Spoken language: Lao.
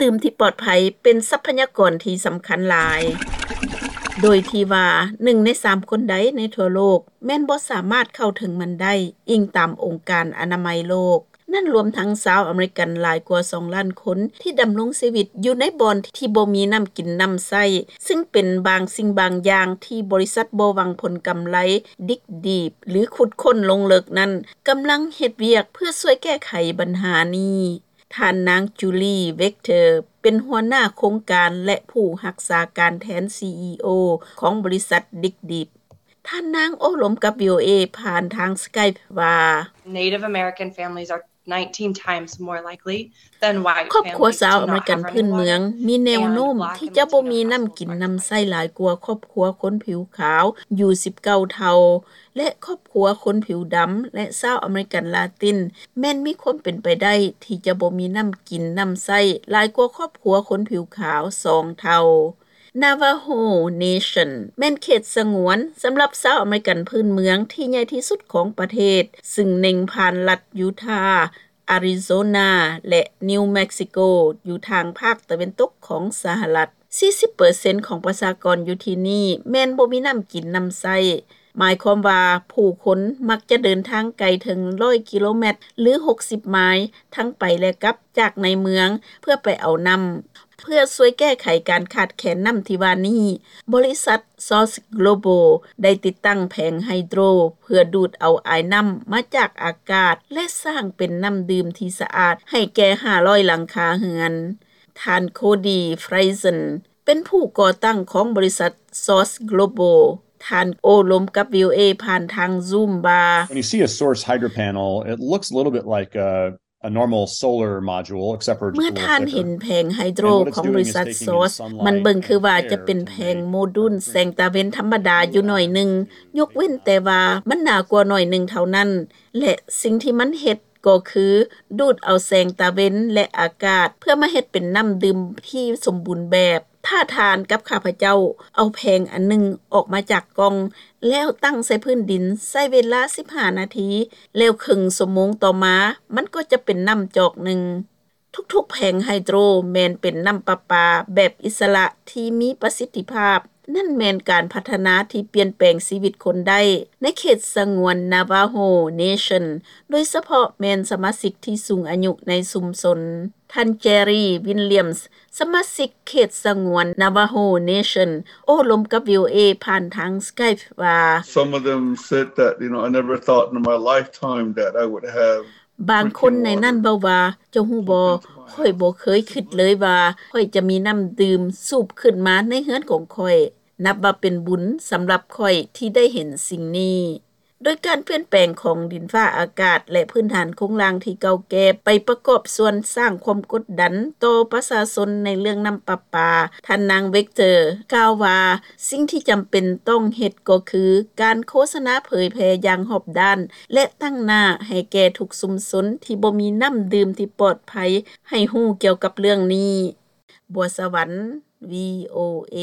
ດື່ມທີ່ປອດໄພເປັນຊັບພະຍາກອນທີ່ສຳຄັນຫຼາຍ, ໂດຍທີ່ວ່າໜຶ່ງໃນສາມຄົນໃດໃນທົ່ວໂລກແມ່ນບໍ່ສາມາດເຂົ້າເຖິງມັນໄດ້, ອີງຕາມອົງການອະນາໄມໂລກ. ນັ້ນລວມທັງຊາວອາເມລິກັນຫຼາຍກວ່າສອງລ້ານຄົນທີ່ດຳລົງຊີວິດຢູ່ໃນບ່ອນທີ່ບໍ່ມີນ້ຳກິນນ້ຳໃຊ້, ຊຶ່ງເປັນບາງສິ່ງບາງຢ່າງທີ່ບໍລິສັດບໍ່ຫວັງຜົນກຳໄລ ດິກດີບ ຫຼື ຂຸດຄົ້ນລົງເລິກນັ້ນ ກຳລັງເຮັດວຽກເພື່ອຊ່ວຍແກ້ໄຂບັນຫານີ້. ທ່ານນາງ ຈູລີ ເວັກເຕີ ເປັນຫົວໜ້າໂຄງການ ແລະ ຜູ້ຮັກສາການແທນ ຊີອີໂອ ຂອງບໍລິສັດດິກດີບ. ທ່ານນາງໂອ້ລົມກັບ ວີໂອເອ ຜ່ານທາງ Skype ວ່າ Native American families are nineteen times more likely than white families to not have running water. ຄອບຄົວຊາວອາເມລິກັນພື້ນເມືອງມີແນວໂນ້ມທີ່ຈະບໍ່ມີນ້ຳກິນນ້ຳໃຊ້ຫຼາຍກວ່າຄອບຄົວຄົນຜິວຂາວຢູ່ສິບເກົ້າເທົ່າ ແລະ ຄອບຄົວຄົນຜິວດຳ ແລະ ຊາວອາເມລິກັນລາຕິນ ແມ່ນມີຄວາມເປັນໄປໄດ້ທີ່ຈະບໍ່ມີນ້ຳກິນນ້ຳໃຊ້ຫຼາຍກວ່າຄອບຄົວຄົນຜິວຂາວສອງເທົ່າ. Navajo Nation ແມ່ນເຂດສະຫງວນສຳລັບຊາວອາເມລິກັນພື້ນເມືອງທີ່ໃຫຍ່ທີ່ສຸດຂອງປະເທດ, ຊຶ່ງເນັ່ງຜ່ານລັດຢູທາ, ອາຣິໂຊນາ ແລະ ນິວເມັກຊິໂກ ຢູ່ທາງພາກຕາເວັນຕົກຂອງສະຫະລັດ. ສີ່ສິບເປີເຊັນຂອງປະຊາກອນຢູ່ທີ່ນີ້ແມ່ນບໍ່ມີນ້ຳກິນນ້ຳໃຊ້, ໝາຍຄວາມວ່າຜູ້ຄົນມັກຈະເດີນທາງໄກເຖິງຮ້ອຍກິໂລແມັດ ຫຼື ຫົກສິບໄມລ໌ ທັງໄປ ແລະ ກັບຈາກໃນເມືອງເພື່ອໄປເອົານ້ຳ. ເພື່ອຊ່ວຍແກ້ໄຂການຂາດແຄນນ້ຳທີ່ວ່ານີ້, ບໍລິສັດ Source Global ໄດ້ຕິດຕັ້ງແຜງໄຮໂດຣເພື່ອດູດເອົາອາຍນ້ຳມາຈາກອາກາດ ແລະ ສ້າງເປັນນ້ຳດື່ມທີ່ສະອາດໃຫ້ແກ່ຫ້າຮ້ອຍຫຼັງຄາເຮືອນ. ທ່ານ ໂຄດີ ຟຣາຍເຊັນ ເປັນຜູ້ກໍ່ຕັ້ງຂອງບໍລິສັດ Source Global. ທ່ານໂອ້ລົມກັບ ວີໂອເອ ຜ່ານທາງ Zoom ວ່າ When you see a Source hydro panel, it looks a little bit like a a normal solar module, except for just a little thicker. ເມື່ອທ່ານເຫັນແຜງໄຮໂດຣຂອງບໍລິສັດ Source, ມັນເບິ່ງຄືວ່າຈະເປັນແຜງໂມດູນແສງຕາເວັນທຳມະດາຢູ່ໜ້ອຍໜຶ່ງ, ຍົກເວັ້ນແຕ່ວ່າມັນໜາກວ່າໜ້ອຍໜຶ່ງເທົ່ານັ້ນ, ແລະ ສິ່ງທີ່ມັນເຮັດກໍຄືດູດເອົາແສງຕາເວັນ ແລະ ອາກາດ ເພື່ອມາເຮັດເປັນນ້ຳດື່ມທີ່ສົມບູນແບບ. ຖ້າທ່ານກັບຂ້າພະເຈົ້າເອົາແຜງອັນໜຶ່ງອອກມາຈາກກ່ອງ ແລ້ວຕັ້ງໃສ່ພື້ນດິນ ໃຊ້ເວລາສິບຫ້ານາທີ, ແລ້ວເຄິ່ງຊົ່ວໂມງຕໍ່ມາ ມັນກໍຈະເປັນນ້ຳຈອກໜຶ່ງ. ທຸກໆແຜງໄຮໂດຣແມ່ນເປັນນ້ຳປະປາແບບອິດສະຫຼະທີ່ມີປະສິດທິພາບ. ນັ້ນແມ່ນການພັດທະນາທີ່ປ່ຽນແປງຊີວິດຄົນໄດ້ໃນເຂດສະຫງວນ Navajo Nation, ໂດຍສະເພາະແມ່ນສະມາຊິກທີ່ສູງອາຍຸໃນຊຸມຊົນ. ທ່ານ Jerry Williams, ສະມາຊິກເຂດສະຫງວນ Navajo Nation ໂອ້ລົມກັບ ວີໂອເອ ຜ່ານທາງ Skype ວ່າ Some of them said that, you know, I never thought in my lifetime that I would have ບາງຄົນໃນນັ້ນເວົ້າວ່າ, ເຈົ້າຮູ້ບໍ່, ຂ້ອຍບໍ່ເຄີຍຄິດເລີຍວ່າຂ້ອຍຈະມີນ້ຳດື່ມສູບຂຶ້ນມາໃນເຮືອນຂອງຂ້ອຍ. ນັບວ່າເປັນບຸນສຳລັບຂ້ອຍທີ່ໄດ້ເຫັນສິ່ງນີ້. ໂດຍການປ່ຽນແປງຂອງດິນຟ້າອາກາດ ແລະ ພື້ນຖານໂຄງລ່າງທີ່ເກົ່າແກ່ ໄປປະກອບສ່ວນສ້າງຄວາມກົດດັນຕໍ່ປະຊາຊົນໃນເລື່ອງນ້ຳປະປາ. ທ່ານນາງ ເວັກເຕີ ກ່າວວ່າ, ສິ່ງທີ່ຈຳເປັນຕ້ອງເຮັດກໍຄືການໂຄສະນາເຜີຍແຜ່ຢ່າງຮອບດ້ານ ແລະ ຕັ້ງໜ້າໃຫ້ແກ່ທຸກຊຸມຊົນທີ່ບໍ່ມີນ້ຳດື່ມທີ່ປອດໄພ ໃຫ້ຮູ້ກ່ຽວກັບເລື່ອງນີ້. ບົວສະຫວັນ ວີໂອເອ.